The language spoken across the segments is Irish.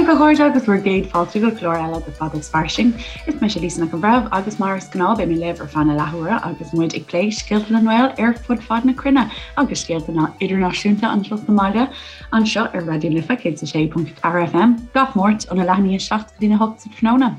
Daoibh a chairde agus bhur gcéad fáilte go clár eile de Fada is Fairsing. Is mise Lisa Nic an Bhreithimh agus mar is gnáth beidh mé libh ar feadh na leathuaire agus muid ag plé scéalta na nGael ar fud fad na cruinne agus scéalta na idirnáisiúnta anseo sa mbaile anseo ar Raidió na Life 106.4 FM gach Máirt óna leath i ndiaidh 7 go dtí a 8 sa tráthnóna.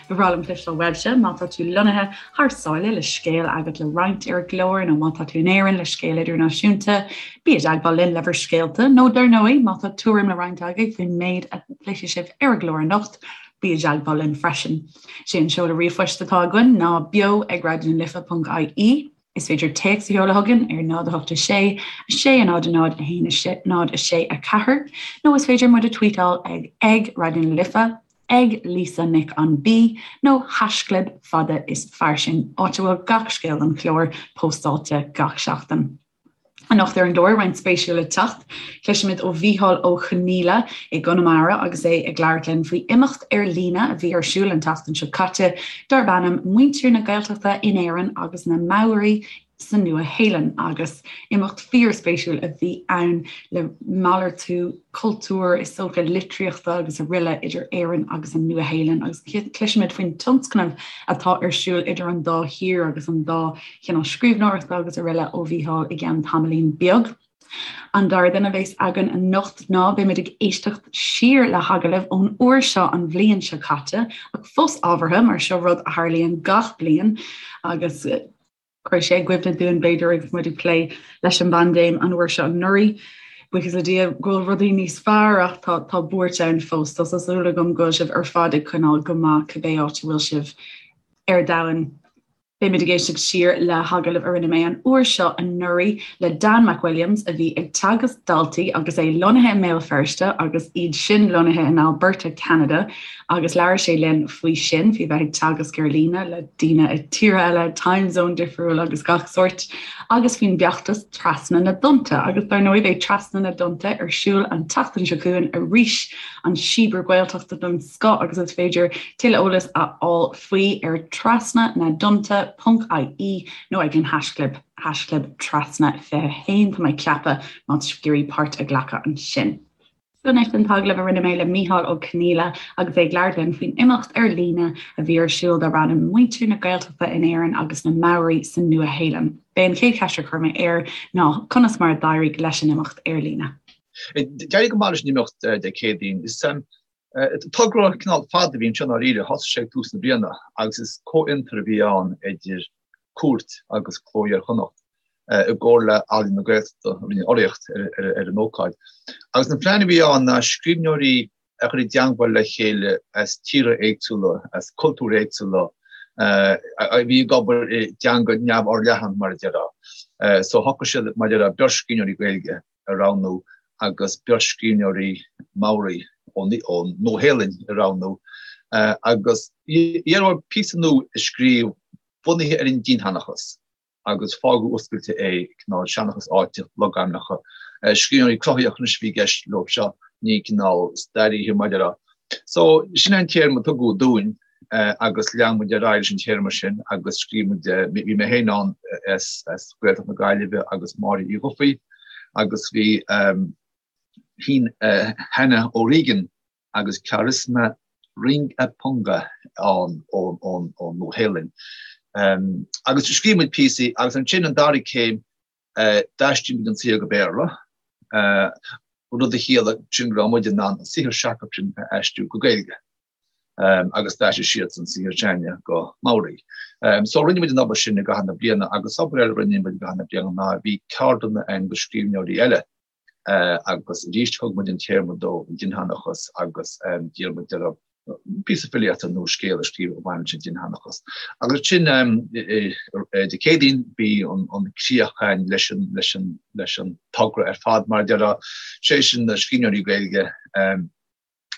Ba bhreá liom cloisteáil uaibhse má tá tú lonnaithe thar sáile le scéal agat le roinnt ar an gclár nó má tá tú in Éirinn le scéal idirnáisiúnta, bí i dteagmháil linn le bhur scéalta nó dar ndóigh má tá tuairim le roinnt agaibh faoin méid a chloisfidh sibh ar an gclár anocht, bí i dteagmháil linn freisin. Sé an seoladh ríomhphoist atá againn ná beo ag raidionalife.ie. Is féidir téacs a sheoladh chugainn ar 0 8 6 6 0 0 1 6 0 6 4 nó is féidir muid a tweetáil ag ag Raidió na Life, ag Lisa Nic an B nó haischlib fada is fairsing, áit a bhfuil gach scéal den chlár póstáilte gach seachtain. Anocht ar an gclár, roinnt spéisiúil le teacht. Cloisfimid ó Mhícheál Ó Conghaile i gConamara agus é ag labhairt linn faoi imeacht ar líne a bhí ar siúl an tseachtain seo caite darb ainm Muintir na Gaeltachta in Éirinn agus na Maori sa Nua-Shéalainn agus imeacht fíorspéisiúil a bhí ann le malartú cultúir, is dócha, litríochta agus araile idir Éirinn agus an Nua-Shéalainn agus cloisfimid faoin tionscnamh atá ar siúl idir an dá thír agus an dá chineál scríbhneoireachta agus araile ó Mhícheál i gceann tamaillín beag. An dara duine a bheas againn anocht ná beimid ag éisteacht siar le hagallamh ón uair seo an bhliain seo caite ach fós ábhartha mar seo rud a tharlaíonn gach bliain agus cuirfidh sé i gcuimhne dúinn b'fhéidir agus muid ag plé leis an bpaindéim an uair seo anuraidh. Buíochas le Dia go bhfuil rudaí níos fearr ach tá tá buairt ann fós. Tá súil agam go bhfuil sibh ar fad ag coinneáil go maith cibé áit a bhfuil sibh ar domhan. Beimid ag éisteacht siar le hagallamh a rinne mé an uair seo anuraidh le Dan McWilliams a bhí ag teagasc daltaí agus é lonnaithe i mBéal Feirste agus iad sin lonnaithe in Alberta, Ceanada agus labhair sé linn faoi sin, faoi bheith ag teagasc ar líne le daoine i tíortha eile, time zone difriúil agus gach sórt, agus faoin bhfeachtas Trasna na dTonnta. Agus dar ndóigh beidh Trasna na dTonnta ar siúl an tseachtain seo chugainn arís, an síobar Gaeltachta den scoth agus is féidir tuilleadh eolais a fháil faoi ar trasna na dtonnta ponc ie nó ag an haischlib, haischlib trasna 21 tá mé ag ceapadh, má tá sibh ag iarraidh páirt a ghlacadh ansin. So anois an t-agallamh a rinne mé le Mícheál Ó Conghaile agus é ag labhairt linn faoin imeacht ar líne a bhí ar siúl darb ainm Muintir na Gaeltachta in Éirinn agus na Maori sa Nua-Shéalainn. B'é an chéad cheist a chuir mé air ná conas mar a d'éirigh leis an imeacht ar líne. D'éirigh go maith leis an imeacht Dé Céadaoin. Is Togra cineál fada a bhí anseo i ndáiríre. Thosaigh sé ag tús na bliana agus is comhfhiontar a bhí ann idir Cúirt agus Cló Iar-Chonnacht i gcomhar le Ealaín na Gaeltachta a rinne urraíocht ar an ócáid. Agus an plean a bhí ann ná scríbhneoirí a chur i dteangmháil le chéile as tíortha éagsúla, as cultúir éagsúla, a bhí ag obair i dteanga neamhfhorleathan, mar a déarfá. So shocraigh siad, mar a déarfá, beirt scríbhneoirí Gaeilge a roghnú agus beirt scríbhneoirí Maori ón Nua-Shéalainn a roghnú agus iarradh orthu píosa nua a scríobh bunaithe ar an dinnseanchas agus fágadh oscailte é, cineál seanchas áite, logainmneacha. Scríbhneoirí cruthaitheacha anois a bhí i gceist leo seo, ní cineál staraithe mar a déarfá. So, sin é an téarma a tugadh dúinn. agus lean muid ar aghaidh leis an téarma sin agus scríobh muid, bhí mé féin ann as Gaeltacht na Gaillimhe agus Máire Uí Dhufaigh agus bhí Hannah O'Regan agus Charisma Rangipunga ann ón Nua-Shéalainn. Agus scríobh muid píosaí agus ansin an dara céim d'aistrigh muid an saothar go Béarla, rud a chiallaigh sin go raibh muid in ann an saothar s'acu sin a aistriú go Gaeilge. agus d'aistrigh siadsan saothar s'againne go Maori. So rinne muid an obair sin i gcaitheamh na bliana agus obair eile a rinne muid i gcaitheamh na bliana ná bhí ceardlanna againn do scríbhneoirí eile agus arís thug muid an téarma dóibh, an dinnseanchas, agus d'iarr muid orthu píosa filíochta nó scéal a scríobh a bhain leis an dinnseanchas. Agus ansin Dé Céadaoin bhí an críoch againn leis an leis an leis an togra ar fad mar a déarfá, sé sin na scríbhneoirí Gaeilge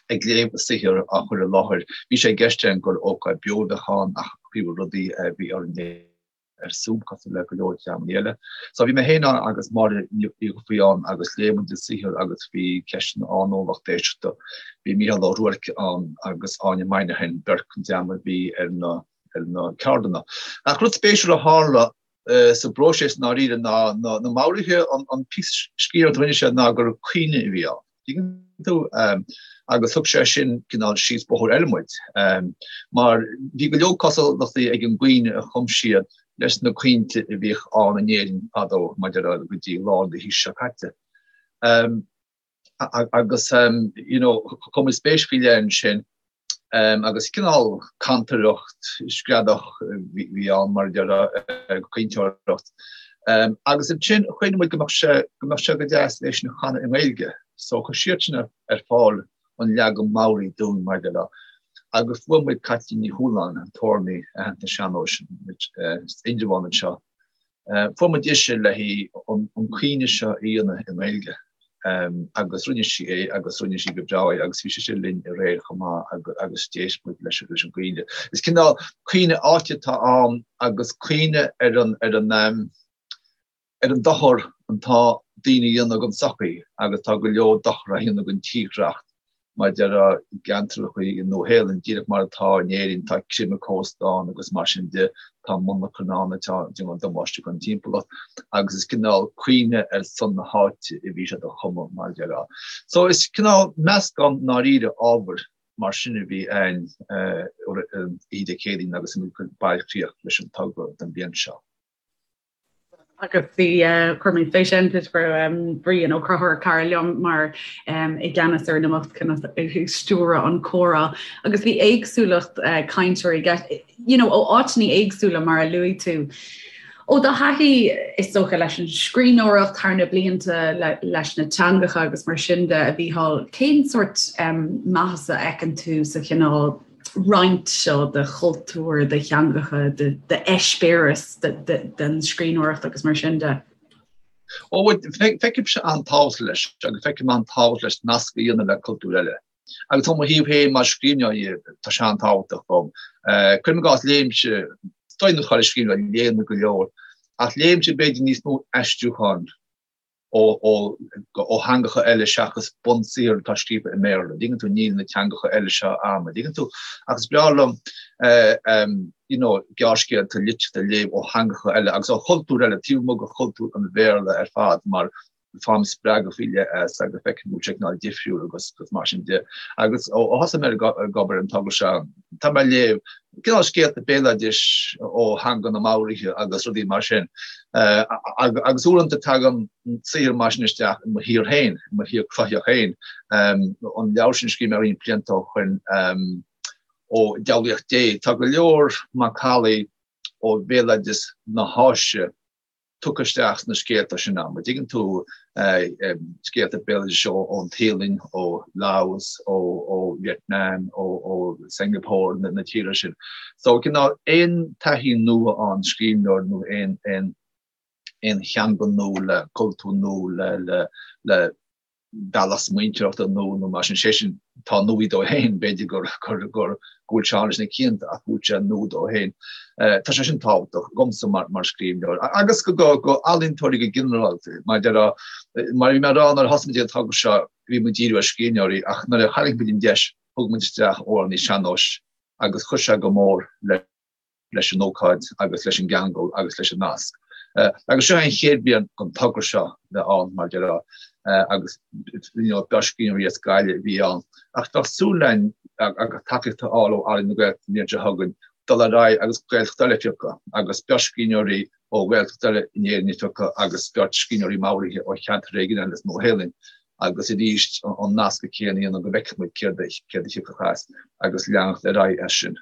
ag léamh a saothar á chur i láthair. Bhí sé i gceist againn gur ócáid beo a bheadh ann ach faoi rudaí bhí orainn é ar Zoom cosúil le go leor dreamanna eile. So bhí mé féin ann agus Máire Ní Dhufaigh ann agus léigh muid an saothar agus bhí ceisteanna ann ón lucht éisteachta. Bhí Mícheál Ó Ruairc ann agus Áine Moynihan, beirt den dream a bhí ar na ar na ceardlanna. Ach rud spéisiúil a tharla sa bpróiseas i ndáiríre ná na Maoraithe an píosa scríbhneoireachta a rinne siad ná gur caoineadh a bhí ann. tú? Agus thug sé sin cineál síos bóthar eile muid, mar bhí go leor cosúlachtaí ag an gcaoineadh a chum siad leis na caointe a bhíodh ann in Éirinn fadó, maidir le go dtí lár na haoise seo caite. Agus you know, chuir muid spéis faoi leith ansin agus cineál cantaireacht screadach a bhí ann mar a déarfá, caointeoireacht. Agus ansin chuimhnigh muid go mbeadh sé, go mbeadh sé go deas é sin a chanadh i nGaeilge. So chuir siadsan ar fáil an leagan Maori dúinn mar a déarfá. Agus fuair muid Caitlín Ní Chualáin, an t-amhránaí aitheanta sean-nóis as Indreabhán anseo, Fuair muid ise le haghaidh an caoineadh seo a dhéanamh i nGaeilge agus rinne sí é agus rinne sí go breá é agus bhí sise linn aréir chomh maith agus d'éist muid leis an gcaoineadh. Is cineál caoineadh áite atá ann agus caoineadh ar an ar an ar an dochar atá daoine a dhéanamh don tsochaí agus tá go leor dochar á dhéanamh don tírdhreach Mar a déarfá i gceantracha i Nua-Shéalainn, díreach mar atá in Éirinn, tá creimeadh cósta ann agus mar sin de, tá monarchana ann atá ag déanamh damáiste don timpeallacht agus is cineál caoineadh ar son na háite a bhí siad a chumadh, mar a déarfá. So is cineál meascán ndáiríre ábhair mar sin a bhí ann oíche Dé Céadaoin agus muid ag cur bailchríoch leis an togra don bhliain seo. Agus bhí, chuir mé spéis ann toisc go raibh Brian Ó Conchúir, cara liom, mar i gceannas ar an imeacht ag stiúradh an comhrá. Agus bhí éagsúlacht cainteoirí you know, ó áiteanna éagsúla mar a luaigh tú. Ó do thaithí is dócha leis an scríbhneoireacht thar na blianta leis na teangacha agus mar sin de a Mhícheáil, cén sórt maitheasa a fheiceann tú sa chineál roinnt seo de chultúr, de theangacha, d'eispéireas den scríbhneoireacht agus mar sin de. Ó, feicimse an-tábhacht leis agus feicim an-tábhacht leis nasc a dhéanamh le cultúir eile. Agus ó mo thaobh féin mar scríbhneoir tá sé an-tábhachtach dom. Cuirim i gcás léimse, is dóigh nach chuile scríbhneoir léann go leor, ach léimse b'fhéidir níos mó aistriúcháin ó theangacha eile seachas bunsaothar atá scríofa i mBéarla. An dtuigeann tú, níl na teangacha eile seo a'm, an dtuigeann tú? Ach is breá liom you know, gearrscéalta, litríocht a léamh ó theangacha eile agus ó chultúir eile, taobh amuigh de chultúr an Bhéarla ar fad mar faighim spreagadh faoi leith as agus feicim go bhfuil sé cineál difriúil agus mar sin de. Agus ó thosaigh mé ag obair ar an togra seo, tá mé ag léamh cineál scéalta béaloidis ó theanga na Maoraithe agus rudaí mar sin. Agus uaireanta tagann saothar mar sin isteach i mo shaothar féin, i mo shaothar cruthaitheach féin. An leabhar sin a scríobh mé roinnt blianta ó shoin, ó Diabhlaíocht Dé, tá go leor macallaí ó bhéaloideas na hÁise tugtha isteach sna scéalta sin a'm. An dtuigeann tú, scéalta béaloidis ón Téalainn, ó Laos, ó Vietnam, ó Singapore, na tíortha sin. So cineál aon taithí nua ón scríbhneoir nó aon aon theanga nua le cultúr nua le le bealach smaointeoireachta nua nó mar sin, sé sin atá nua dó féin, b'fhéidir gur gur gur go bhfuil sé ann leis na cianta ach go bhfuil sé nua dó féin. Tá sé sin tábhachtach dhomsa mar mar scríbhneoir agus go go go ealaíontóirí go ginearálta. Mar déarfá mar a bhí mé ag rá nuair a thosaigh muid an togra seo bhí muid ag díriú ar scríbhneoirí ach nuair a tharraing muid an deis thug muid isteach amhránaí sean-nóis agus chuir sé go mór le leis an ócáid agus leis an gceangal agus leis an nasc. Agus seo é an chéad bhliain don togra seo bheith ann, mar déarfá, agus you know beirt scríbhneoirí as Gaillimh a bhí ann. Ach tá súil againn agus tacaíocht a fháil ó Ealaín na Gaeltachta an bhliain seo chugainn dul ar aghaidh agus Gaeltacht eile a phiocadh agus beirt scríbhneoirí ó Ghaeltacht eile in Éirinn a phiocadh agus beirt scríbhneoirí Maoraithe ó cheantar éigin eile sa Nua-Shéalainn agus arís an nasc céanna a dhéanamh go bhfeicfidh muid céard a thiocfadh as agus leanacht ar aghaidh as sin.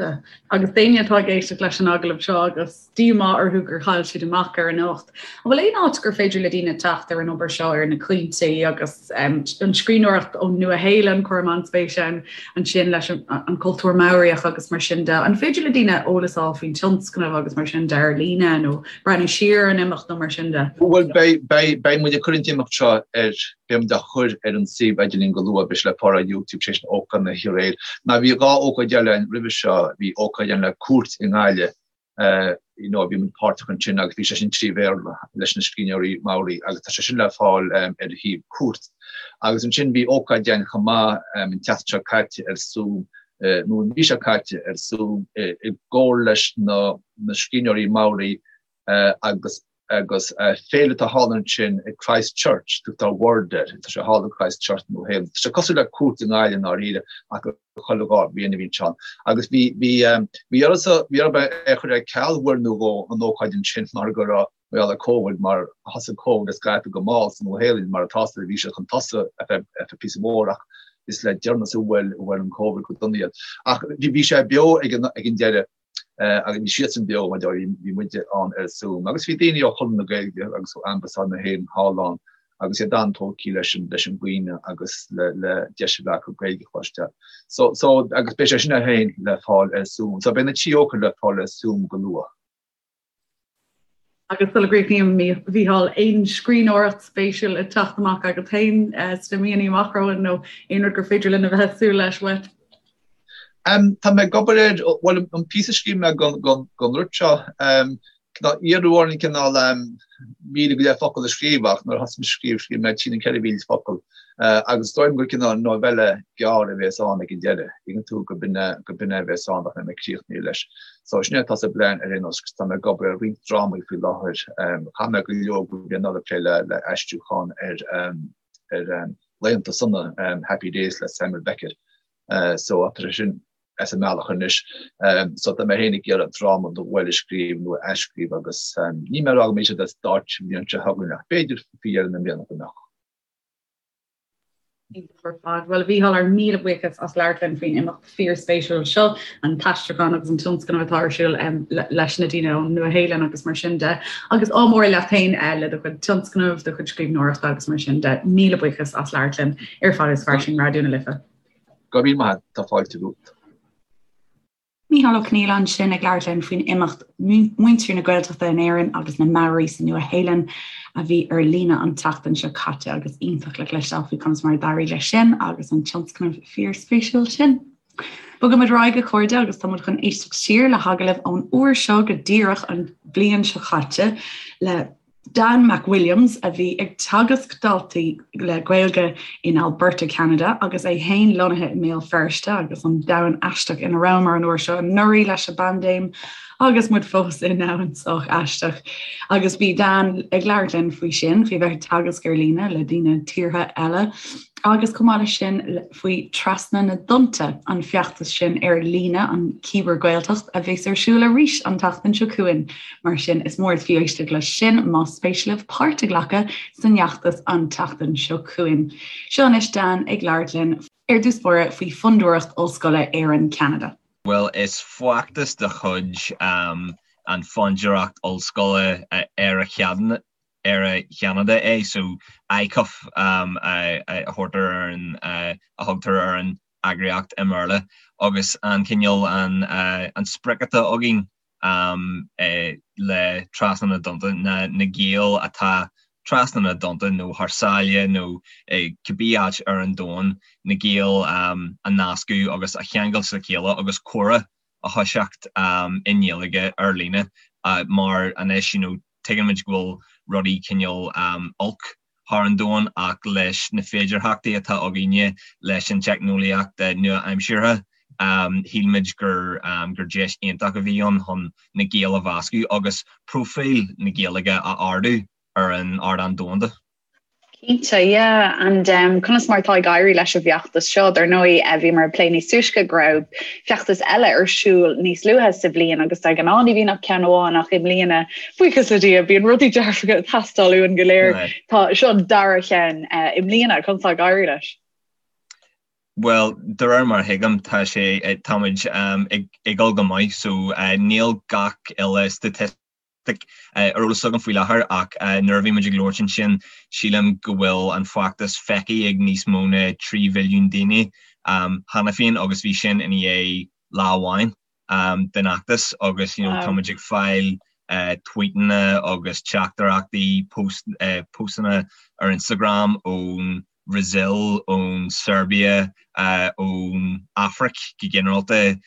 Agus daoine atá ag éisteacht leis an agallamh seo agus díomá orthu gur chaill siad amach ar an imeacht, an bhfuil aon áit gur féidir le daoine teacht ar an obair seo, ar na caointe agus an scríbhneoireacht ón Nua-Shéalainn, cuirim an-spéis ann ansin leis an cultúr Maoraíoch agus mar sin de. An féidir le daoine eolas a fháil faoin tionscnamh agus mar sin de ar líne nó breathnú siar ar an imeacht nó mar sin de? Bhuel, beidh muid ag cur an t-imeacht seo ar Beidh muid á chur ar an suíomh idirlín go luath, beidh sé le fáil ar YouTube, sé sin ócáid na hoíche aréir. Now bhí 2 ócáid eile ann roimhe seo, bhí ócáid ann le Cúirt i nGaillimh, you know, bhí muid páirteach ansin agus bhí sé sin 3 Bhéarla leis na scríbhneoirí Maori agus tá sé sin le fáil ar shuíomh Cúirt. Agus ansin bhí ócáid ann chomh maith an tseachtain seo caite ar Zoom, nó an mhí seo caite ar Zoom i gcomhar leis na scríbhneoirí Maori agus. Agus féile atá thall ansin i Christchurch, tugtar World air, tá sé thall i Christchurch Nua Shéalainn. Tá sé cosúil le Cúirt i nGaillimh i ndáiríre ach chuile dhá bhliain a bhíonn sé ann. Agus bhí, bhí, bhí ormsa, bhí orm é a chur ar ceal uair nó dhó an ócáid ansin mar go raibh, mar gheall ar Covid, mar thosaigh Covid ag scaipeadh go mall sa Nua Shéalainn mar atá, bhí sé chun tosú ar feadh, ar feadh píosa mór ach is le deireanas a bhuail, a bhuail an Covid go dona iad. Ach bhí, bhí sé beo ag an, ag an deireadh. Agus bhí siadsan beo, mar bhí muide ann ar Zoom. Agus bhí daoine ó Chonradh na Gaeilge agus ó Ambasáid na hÉireann thall ann agus iad an-tógtha leis an leis an gcaoineadh agus le le deis a bheith acu Gaeilge a chloisteáil. So so agus beidh sé sin é féin le fáil ar Zoom. So beidh na trí ócáid le fáil ar Zoom go luath. Agus sula gcríochnaím, a Mhícheáil, aon scríbhneoireacht spéisiúil ag teacht amach agat féin sna míonna amach romhainn nó aon rud gur féidir linn a bheith ag súil leis uait? Tá mé ag obair ar, bhuel, an píosa a scríobh mé don rud seo, iarradh orainn cineál 1,000 go leith focal a scríobh ach nuair a thosaigh mé ag scríobh, scríobh mé trí nó 4,000 focal agus is dóigh liom gur cineál novella gearr a bhéas ann ag an deireadh, tuigeann tú, gurb in é a bhéas ann ach níl mé críochnaithe leis. So sin é atá sa bplean ar aon nós agus tá mé ag obair ar roinnt drámaí faoi láthair. Chaith mé go leor de bhliain anuraidh ag plé le aistriúchán ar ar Laethanta Sona, Happy Days le Samuel Beckett. So tá sé sin as an mbealach anois. So tá mé féin ag iarraidh dráma nó dhó eile a scríobh nó a athscríobh agus níl mé ag rá go mbeidh siad ar stáitse an bhliain seo chugainn ach b'fhéidir faoi dheireadh na mbliana go mbeadh. Iontach ar fad. Bhuel, a Mhícheáil, ár míle buíochas as labhairt linn faoin imeacht fíorspéisiúil seo, an t-aistriúchán agus an tionscnamh atá ar siúl leis na daoine ón Nua-Shéalainn agus mar sin de. Agus ádh mór leat féin le do chuid tionscnamh, do chuid scríbhneoireachta agus mar sin de. Míle buíochas as labhairt linn ar Fada is Fairsing Raidió na Life. Go raibh míle maith agat, tá fáilte romhat. Mícheál Ó Conghaile ansin ag labhairt linn faoin imeacht Muintir na Gaeltachta in Éirinn agus na Maori sa Nua-Shéalainn a bhí ar líne an tseachtain seo caite agus iontach le cloisteáil faoi conas mar a d'éirigh leis sin agus an tionscnamh fíorspéisiúil sin. Bogaimid ar aghaidh a chairde agus tá muid chun éisteacht siar le hagallamh ón uair seo go díreach an bhliain seo caite le Dan McWilliams, a bhí ag teagasc daltaí le Gaeilge in Alberta, Ceanada, agus é féin lonnaithe i mBéal Feirste agus an domhan aisteach ina rabhamar an uair seo anuraidh leis an bpaindéim agus muid fós i ndomhan sách aisteach. Agus bhí Dan ag labhairt linn faoi sin, faoi bheith ag teagasc ar líne le daoine tíortha eile agus chomh maith leis sin faoi Trasna na dTonnta, an feachtas sin ar líne, an Cíbear-Ghaeltacht, a bheas ar siúl arís an tseachtain seo chugainn. Mar sin, is mór is fiú éisteacht leis sin más spéis libh páirt a ghlacadh san fheachtas an tseachtain seo chugainn. Seo anois Dan ag labhairt linn ar dtús báire faoi Fondúireacht Ollscoile Éireann-Ceanada. Bhuel, is feachtas de chuid an Fondúireacht Ollscoile Éire-Cheanada é, so ICUF a thabhartar ar an, a thugtar ar an eagraíocht i mBéarla, agus an cineál, an sprioc atá againn le Trasna na dTonnta ná na Gaeil atá trasna na dtonnta nó thar sáile nó cibé áit ar an domhan, na Gaeil a nascadh agus a cheangal le chéile agus comhrá a thoiseacht i nGaeilge ar líne mar anois you know tuigeann muid go bhfuil rudaí cineál olc thar an domhan ach leis na féidearthachtaí atá againne leis an teicneolaíocht nua-aimseartha, shíl muid gur gur deis iontach a bhí ann chun na Gaeil a mheascadh agus próifíl na Gaeilge a ardú ar an ardán domhanda. Cinnte, yeah. And um, conas mar atá ag éirí leis an bhfeachtas seo? Dar ndóigh, eh, bhíomar ag plé níos túisce go raibh feachtas eile ar siúl níos luaithe sa bhliain agus de ghnáth ní bhíonn ach ceann amháin ach i mbliana Buíochas le Dia, bíonn rudaí dearfacha ag teastáil uainn go léir. Tá seo an dara cheann i mbliana, conas tá ag éirí leis? Bhuel, de réir mar a thuigim, tá sé, táimid ag dul go maith, so níl gach uile staitistic ar eolas agam faoi láthair ach nuair a bhí muid ag labhairt ansin, sílim go bhfuil an feachtas feicthe ag níos mó ná 3 mhilliún daoine cheana féin agus bhí sin i ndiaidh lá amháin. den fheachtas agus you know táimid ag fáil tweetanna agus teachtaireachtaí, postanna ar Instagram ón Bhrasaíl, ón Serbia, ón Afraic go ginearálta,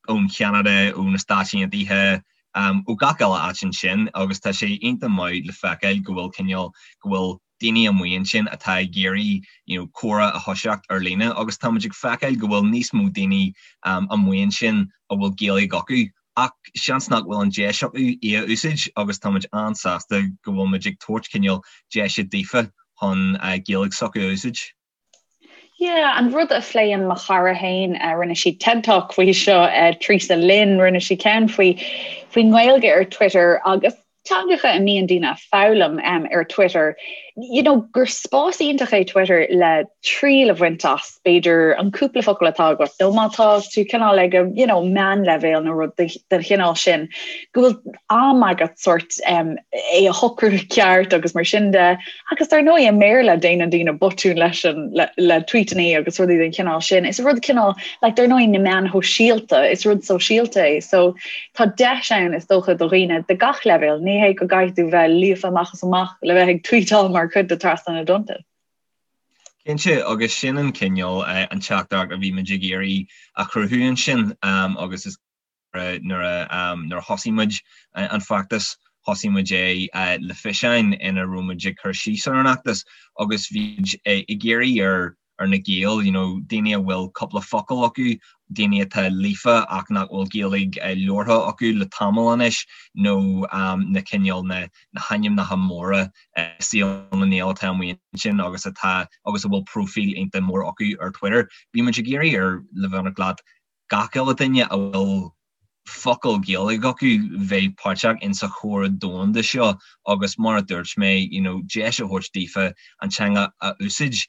ón Cheanada, ó na Stáit Aontaithe, ó gach uile áit ansin agus tá sé iontach maith le feiceáil go bhfuil cineál, go bhfuil daoine amuigh ansin atá ag iarraidh you know comhrá a thoiseacht ar líne agus táimid ag feiceáil go bhfuil níos mó daoine amuigh ansin a bhfuil Gaeilge acu. Ach seans nach bhfuil an deis acu í a úsáid agus tá muid an-sásta go bhfuil muid ag tabhairt cineál deise daofa chun Gaeilge s'acu a úsáid. Yeah, an rud a phléann mo chara féin, rinne sí TED Talk faoi seo, Teresa Lynn, rinne sí ceann faoi faoin nGaeilge ar Twitter agus teangacha a mbíonn daoine ag foghlaim ar Twitter, you know, gur spás iontach é Twitter le triail a bhaint as, b'fhéidir, an cúpla focal atá agat, nó má tá tú cineál ag you know, meánleibhéal nó rud den chineál sin, go bhfuil am agat sort um, é a shocrú ceart agus mar sin de. Agus dar ndóigh i mBéarla déanann daoine botúin leis an le, le tweetanna agus rudaí den chineál sin. Is rud cineál like, dar ndóigh na meáin shóisialta, is rud sóisialta é. So tá deis ann is dócha do dhaoine de gach leibhéal, ní hé go gcaithfidh tú bheith líofa amach is amach le bheith ag tweetáil mar chuid de Trasna na dTonnta. Cinnte, agus sin an cineál an teachtaireacht a bhí muid ag iarraidh a chruthú ansin agus is Nuair a thosaigh muid an feachtas, thosaigh muid é le fiseáin ina raibh muid ag cur síos ar an fheachtas agus bhí muid ag iarraidh ar ar na Gaeil, you know, daoine a bhfuil cúpla focal acu, daoine atá líofa ach nach bhfuil Gaeilge labhartha acu le tamall anois nó na cineál na na hainmneacha móra i saol na nGael atá amuigh ansin agus atá agus a bhfuil próifíl iontach mór acu ar Twitter. Bhí muid ag iarraidh ar le bheith ionraic leat gach uile duine a bhfuil focal Gaeilge acu bheith páirteach in sa chomhrá domhanda seo agus mar a dúirt mé you know deis a thabhairt daofa an teanga a úsáid.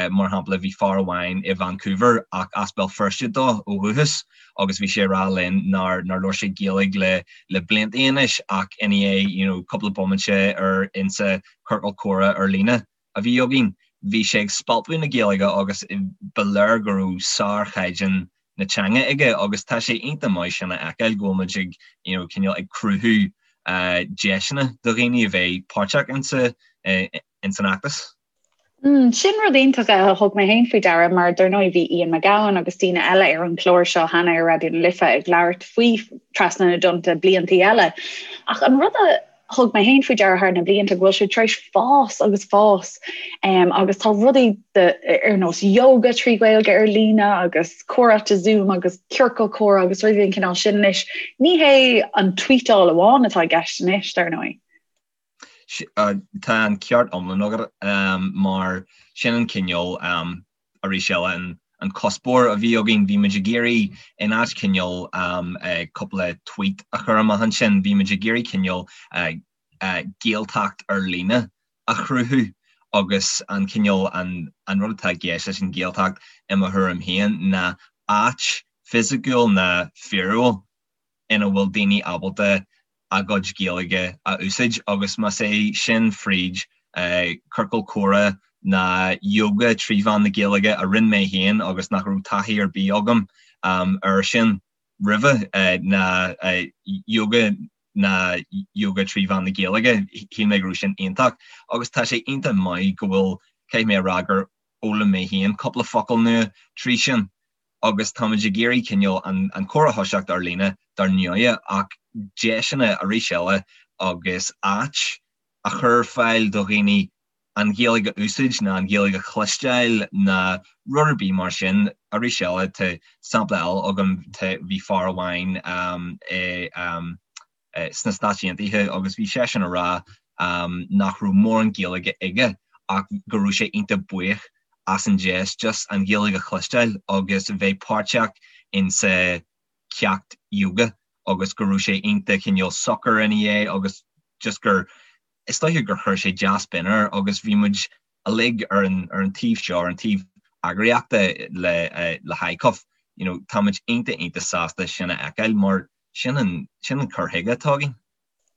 Mar shampla bhí fear amháin i Vancouver ach as Béal Feirste dó ó dhúchas agus bhí sé ag rá linn nár nár labhair sé Gaeilge le le blianta anois ach i ndiaidh you know cúpla bomaite ar insa ciorcal comhrá ar líne a bhí againn, bhí sé ag spalpadh na Gaeilge agus ba léir go raibh sárchaighdeán na teanga aige agus tá sé iontach maith sin a fheiceáil go bhfuil muid ag you know cineál ag cruthú deiseanna do dhaoine a bheith páirteach insa ins an fheachtas. Mm, sin rud iontach a thug mé féin faoi deara mar dar ndóigh bhí Ian McGowan agus daoine eile ar an chlár seo cheana ar Raidió na Life ag labhairt faoi Trasna na dTonnta bliantaí eile. Ach an rud a thug mé féin faoi deara thar na blianta go bhfuil sé tar éis fás agus fás um, agus tá rudaí de, ar nós yoga trí Ghaeilge ar líne agus comhráite Zoom agus ciorcal comhrá agus rudaí den chineál sin anois. Ní hé an tweetáil amháin atá i gceist anois, dar ndóigh. Tá an ceart iomlán agat um, mar sin an cineál um, arís eile an an cuspóir a bhí againn, bhí muid ag iarraidh in áit cineál cúpla tweet a chur amach ansin, bhí muid ag iarraidh cineál Gaeltacht ar líne a chruthú agus an cineál an an rud atá i gceist leis an Ghaeltacht i mo thuairim féin ná áit fisiciúil ná fíorúil ina bhfuil daoine ábalta a gcuid Gaeilge a úsáid agus más é sin fríd ciorcal comhrá ná yoga trí mheán na Gaeilge a rinne mé féin agus nach raibh taithí ar bith agam air sin roimhe, ná yoga ná yoga trí mheán na Gaeilge, shíl mé go raibh sin iontach agus tá sé iontach maith go bhfuil, caithfidh mé a rá gur fhoghlaim mé féin cúpla focal nua trí sin. agus táimid ag iarraidh cineál an comhrá a thoiseacht ar líne dar ndóighe ach deiseanna arís eile agus áit a chur ar fáil do dhaoine an Ghaeilge a úsáid ná an Ghaeilge a chloisteáil ná rud ar bith mar sin. Arís eile tá sampla eile agam, tá, bhí fear amháin i sna Stáit Aontaithe agus bhí seisean ag rá nach raibh mórán Gaeilge aige ach go raibh sé iontach buíoch as an deis just an Ghaeilge a chloisteáil agus bheith páirteach in sa ceacht yoga agus go raibh sé iontach cineál socair ina dhiaidh agus just gur is dóiche gur chuir sé dea-spion air agus bhí muid uilig ar an ar an taobh seo, ar an taobh eagraíochta le le hICUF, you know, tá muid iontach iontach sásta sin a fheiceáil mar sin an sin an cur chuige atá againn.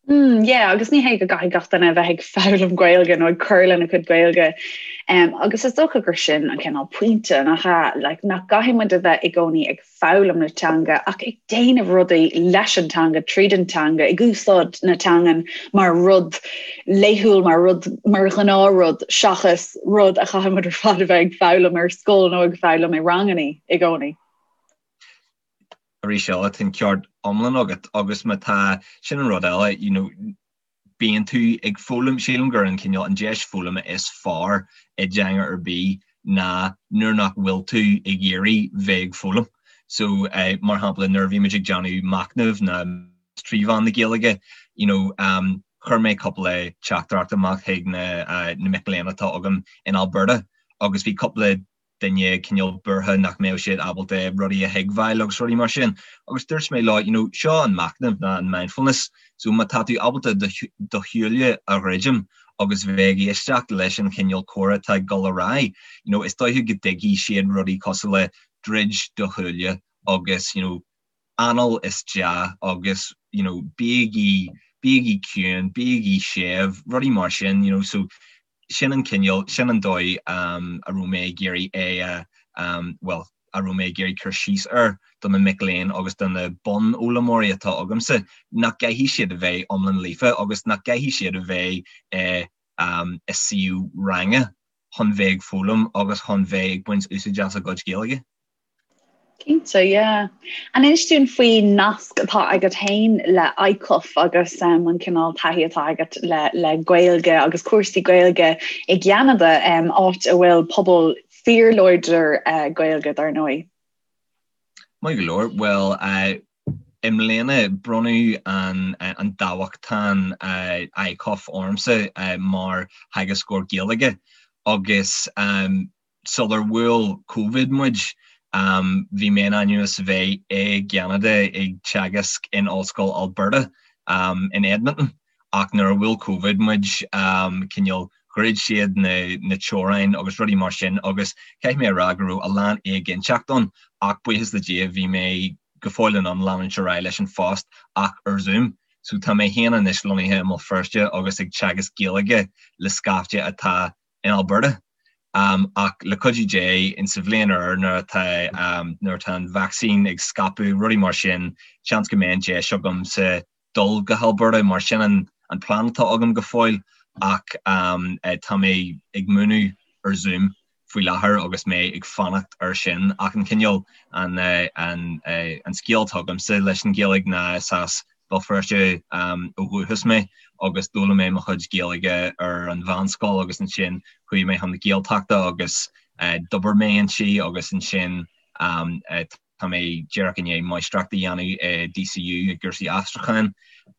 Mm, yeah, agus ní hé go gcaithfidh gach duine a bheith ag foghlaim Gaeilge nó ag cur lena cuid Gaeilge. Um, agus is dócha gur sin an cineál pointe nach ea, like, nach gcaithfidh muid a bheith i gcónaí ag foghlaim na teanga ach ag déanamh rudaí leis an teanga, tríd an teanga, ag úsáid na teangan mar rud laethúil, mar rud mar ghnáthrud seachas rud a chaithfidh muid ar fad a bheith ag foghlaim ar scoil nó ag foghlaim i ranganna i gcónaí. Arís eile, tá an ceart iomlán agat agus má tá, sin an rud eile, you know, bíonn tú ag foghlaim, sílim gur an cineál, an deis foghlama is fearr i dteanga ar bith ná nuair nach bhfuil tú ag iarraidh bheith ag foghlaim. So mar shampla nuair a bhí muid ag déanamh machnamh ná 3 mheán na Gaeilge, you know, chuir mé cúpla teachtaireacht amach chuig na na mic léinn atá agam in Alberta agus bhí cúpla duine cineál buartha nach mbeadh siad ábalta rudaí a thuigbheáil agus rudaí mar sin. Agus dúirt mé leo, you know, seo an machnamh ná an mindfulness, so má tá tú ábalta do shúile a dhruidim agus bheith ag éisteacht leis an chineál comhrá atá ag dul ar aghaidh, you know, is dóiche go dtuigfidh siad rudaí cosúil le druid do shúile agus, you know, anáil isteach agus, you know, bígí, bígí ciúin, bígí séimh, rudaí mar sin, you know, so sin an cineál, sin an dóigh a raibh mé ag iarraidh é a, bhuel, a raibh mé ag iarraidh cur síos air do na mic léinn agus do na bunfhoghlaimeoirí atá agamsa, nach gcaithfidh siad a bheith iomlán líofa agus nach gcaithfidh siad a bheith i i suíomh ranga chun bheith ag foghlaim agus chun bheith ag baint úsáid as a gcuid Gaeilge. Cinnte, yeah. An inis dúinn faoin nasc atá agat féin le ICUF agus um, an cineál taithí atá agat le, le Gaeilge agus cúrsaí Gaeilge i gCeanada, um, áit a bhfuil pobal fíorláidir uh, Gaeilge dar ndóigh. Maith go leor. Bhuel, uh, i mbliana bronnadh an, uh, an dámhachtain uh, ICUF ormsa uh, mar theagascóir Gaeilge agus um, Sular bhuail Covid muid, bhí mé in ainm is a bheith i gCeanada ag teagasc in Ollscoil Alberta in Edmonton ach nuair a bhuail Covid muid, cineál dhruid siad na teorainn agus rudaí mar sin agus caithfidh mé a rá go raibh a lán éiginnteacht ann ach buíochas le Dia bhí mé go fóill in ann leanúint ar aghaidh leis an phost ach ar Zoom. So tá mé féin anois lonnaithe i mBéal Feirste agus ag teagasc Gaeilge le scaifte atá in Alberta. Ach le cuidiú Dé, in sa bhliain úr nuair atá nuair atá an vacsaín ag scaipeadh, rudaí mar sin, seans go mbeidh an deis agamsa dul go hAlberta mar sin an an plean atá agam go fóill ach tá mé ag múineadh ar Zoom faoi láthair agus mé ag fanacht air sin. Ach an cineál an an an scéal atá agamsa leis an Ghaeilge ná is as Béal Feirste ó dhúchas mé agus d'fhoghlaim mé mo chuid Gaeilge ar an mheánscoil agus ansin chuaigh mé chun na Gaeltachta agus d'obair mé inti agus ansin tá mé díreach i ndiaidh máistreacht a dhéanamh i DCU i gcúrsaí aistriúcháin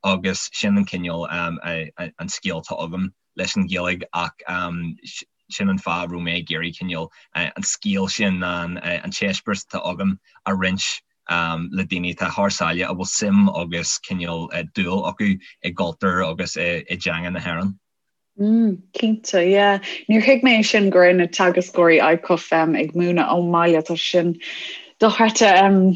agus sin an cineál an scéal atá agam leis an Ghaeilge ach sin an fáth a raibh mé ag iarraidh cineál an scéal sin an t-eispéireas atá agam a roinnt le daoine atá thar sáile a bhfuil suim agus cineál dúil acu i gcultúr agus i dteanga na hÉireann. Mm, cinnte, yeah. Níor thuig mé sin go raibh na teagascóirí ICUF um, ag múineadh ón mbaile tá sin dochreidte um,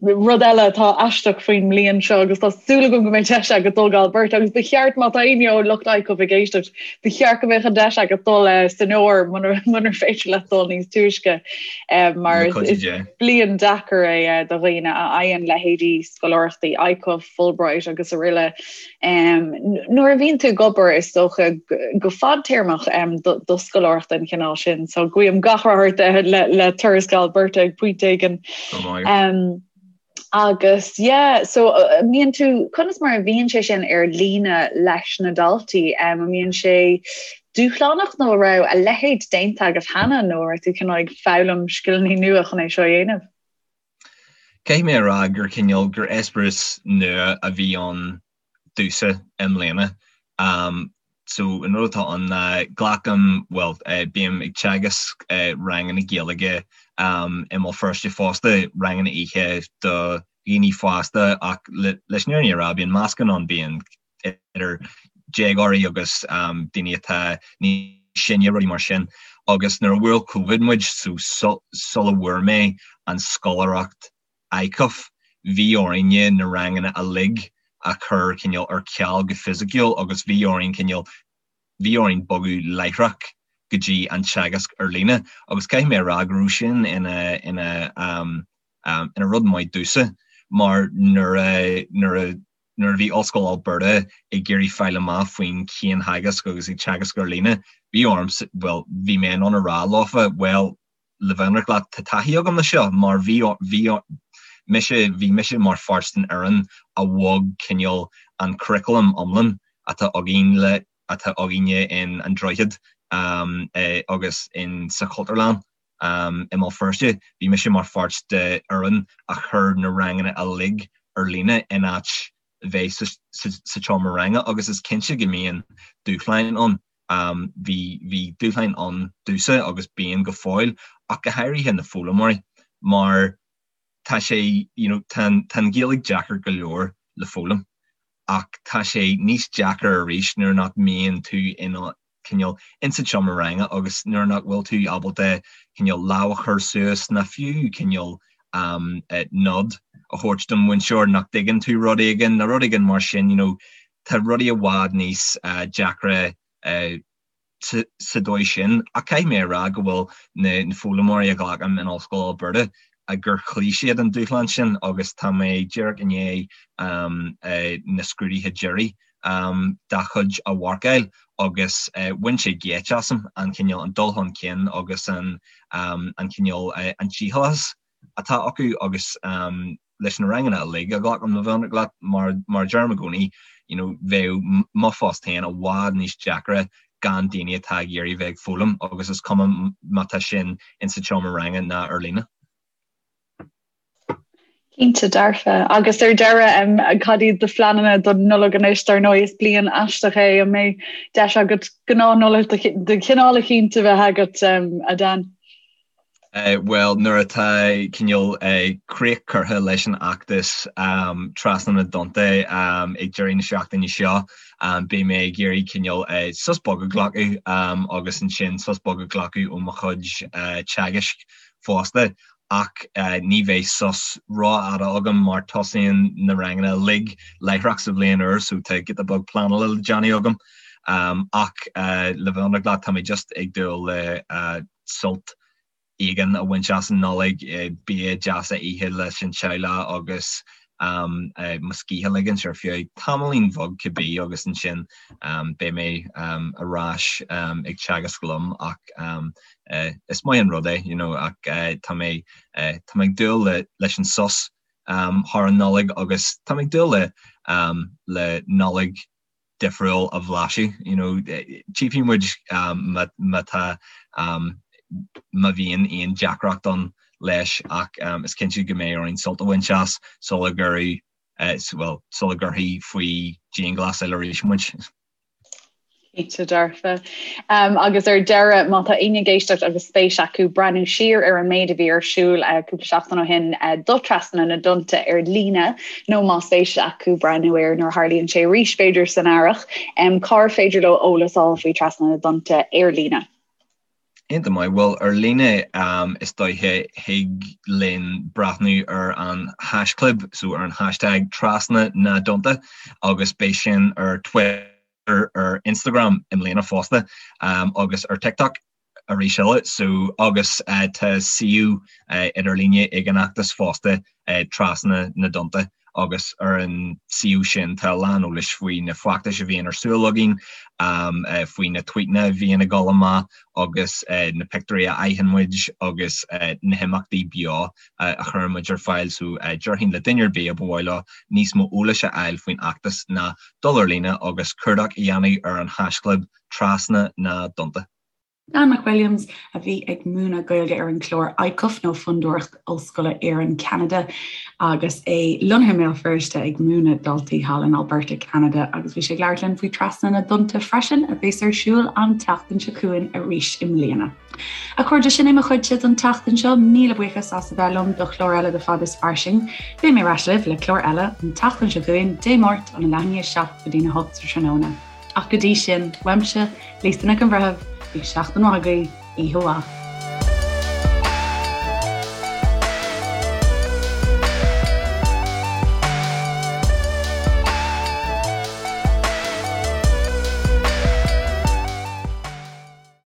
rud eile atá aisteach faoin mbliain seo agus tá súil agam go mbeidh deis agat dul go Alberta agus ba cheart má tá éinne ó lucht ICUF ag éisteacht ba cheart go mbeadh an deis agat dul uh, san fhómhar munar féidir leat dul níos túisce uh, mar is bliain deacair é do dhaoine a fhaigheann leithéidí scoláireachtaí ICUF, Fulbright agus araile. Nuair a bhíonn tú ag obair is dócha go fadtéarmach do scoláireacht den chineál sin, so guím gach rath ort le turas go Alberta ag pointe éigin. Agus yeah, so mbíonn tú, conas mar a bhíonn sé sin ar líne leis na daltaí? An mbíonn sé dúshlánach nó an raibh a leithéid déanta agat cheana nó an raibh tú cineál ag foghlaim scileanna nua chun é seo a dhéanamh? Caithfidh mé a rá gur cineál, gur eispéireas nua a bhí ann domhsa i mbliana. So an rud atá ann ná glacaim, bhuel, bím ag teagasc ranganna Gaeilge i mBéal Feirste fosta, ranganna oíche do dhaoine fásta ach leis an fhírinne a rá bíonn meascán ann, bíonn idir déagóirí agus daoine atá níos sine, rudaí mar sin. Agus nuair a bhuail Covid muid, so sula bhfuair mé an scoláireacht ICUF, bhí orainne na ranganna uilig a chur cineál ar ceal go fisiciúil agus bhí orainn cineál, bhí orainn bogadh láithreach go dtí an teagasc ar líne. Agus caithfidh mé a rá go raibh sin ina, ina, ina rud maith domhsa mar nuair a, nuair a, Nuair a bhí Ollscoil Alberta ag iarraidh fáil amach faoin chiantheagasc agus ag teagasc ar líne, bhí orm, bhuel, bhí mé in ann a rá leofa, bhuel, le bheith ionraic leat, tá taithí agam le seo mar bhí, bhí mise, bhí mise mar pháirt den fhoireann a bhog cineál an curriculum iomlán atá againn le, atá againne in An Droichead agus in sa Chultúrlann. i mBéal Feirste, bhí mise mar pháirt de fhoireann a chuir na ranganna uilig ar líne in áit bheith sa tseomra ranga agus is cinnte go mbíonn dúshláin ann. Bhí bhí dúshláin ann domhsa agus bíonn go fóill ach go háirithe na foghlaimeoirí mar tá sé you know tá tá an Ghaeilge deacair go leor le foghlaim ach tá sé níos deacair arís nuair nach mbíonn tú in cineál insa tseomra ranga agus nuair nach bhfuil tú ábalta cineál lámh a chur suas ná fiú cineál nod a thabhairt don mhúinteoir nach dtuigeann tú rud éigin nó rud éigin mar sin, you know, tá rudaí i bhfad níos deacra sa dóigh sin. Ach caithfidh mé a rá go bhfuil na foghlaimeoirí a ghlacaim in Ollscoil Alberta gur chloígh siad an dúshlán sin agus tá mé díreach i ndiaidh na scrúduithe deiridh dá chuid a mharcáil agus bhain sé geit asam an cineál, an dul chun cinn agus an an cineál, an dícheallachas atá acu agus leis na ranganna uilig a ghlacaim le bheith ionraic leat mar mar a deirim i gcónaí you know bheadh mo phost féin i bhfad níos deacra gan daoine atá ag iarraidh bheith ag foghlaim agus is cuma má tá sin insa tseomra ranga ná ar líne. Cinnte dearfa. Agus ar deireadh, cad iad do phleananna don Nollaig anois? Dar ndóigh is bliain aisteach é, an mbeidh deis agat gnáth-Nollaig de chineál eicínt a bheith agat, a Dan? Bhuel, nuair atá cineál críoch curtha leis an fheachtas Trasna na dTonnta ag deireadh na seachtaine seo, beidh mé ag iarraidh cineál sos beag a ghlacadh agus ansin sos beag a ghlacadh ó mo chuid teagaisc fosta. Ach ní bheidh sos rófhada agam mar tosaíonn na ranganna uilig láithreach sa bhliain úr so tá giota beag pleanála le déanamh agam. Ach le bheith ionraic leat, tá mé just ag dúil le sult éigin a bhaint as an Nollaig, bia deas a ithe leis an teaghlach agus mo scíth a ligint ar feadh tamaillín bheag cibé agus ansin beidh mé ar ais ag teagasc liom ach is maith an rud é you know ach tá mé tá mé ag dúil le leis an sos thar an Nollaig agus tá mé ag dúil le le Nollaig difriúil a bhlaiseadh you know tchífidh muid má má tá má bhíonn aon deacracht ann leis ach is cinnte go mbeidh orainn sult a bhaint as sula gcuirfidh bhuel sula gcuirfí faoi dianghlasáil arís muid. Cinnte dearfa. Agus ar deireadh, má tá éinne ag éisteacht agus spéis acu breathnú siar ar an méid a bhí ar siúl cúpla seachtain ó shin do Trasna na dTonnta ar líne, nó má spéis acu breathnú air nuair a tharlaíonn sé arís, b'fhéidir san earrach, cár féidir leo eolas a fháil faoi Trasna na dTonnta ar líne? Iontach maith. Bhuel, ar líne is dóiche thig linn breathnú ar an haischlib, so ar an hashtag Trasna na dTonnta agus beidh sin ar Twitter, ar Instagram i mbliana fosta agus ar TikTok arís eile. So agus tá suíomh idirlíne ag an fheachtas fosta Trasna na dTonnta agus ar an suíomh sin tá a lán eolais faoi na feachtais a bhíonn ar siúl againn, faoi na tvuíteanna a bhíonn ag dul amach agus na pictiúirí a fhaigheann muid agus na himeachtaí beo a chuireann muid ar fáil. So déarfainn le duine ar bith a ba mhaith leo níos mó eolais a fháil faoin fheachtas ná dul ar líne agus cuardach a dhéanamh ar an haischlib Trasna na dTonnta. Dan McWilliams, a bhí ag múineadh Gaeilge ar an chlár ICUF nó Fondúireacht Ollscoile Éireann-Ceanada agus é lonnaithe i mBéal Feirste ag múineadh daltaí thall in Alberta, Ceanada agus bhí sé ag labhairt linn faoi Trasna na dTonnta freisin a bheas ar siúl an tseachtain seo chugainn arís i mbliana. A chairde, sin é mo chuidse don tseachtain seo. Míle buíochas as a bheith liom do chlár eile de Fad is Fairsing. Beidh mé ar ais libh le clár eile an tseachtain seo chugainn, Dé Máirt, óna leath i ndiaidh 7 go dtína 8 sa tráthnóna. Ach go dtí sin, uaimse, Lisa Nic an Bhreithimh, bíodh seachtain mhaith agaibh, oíche mhaith.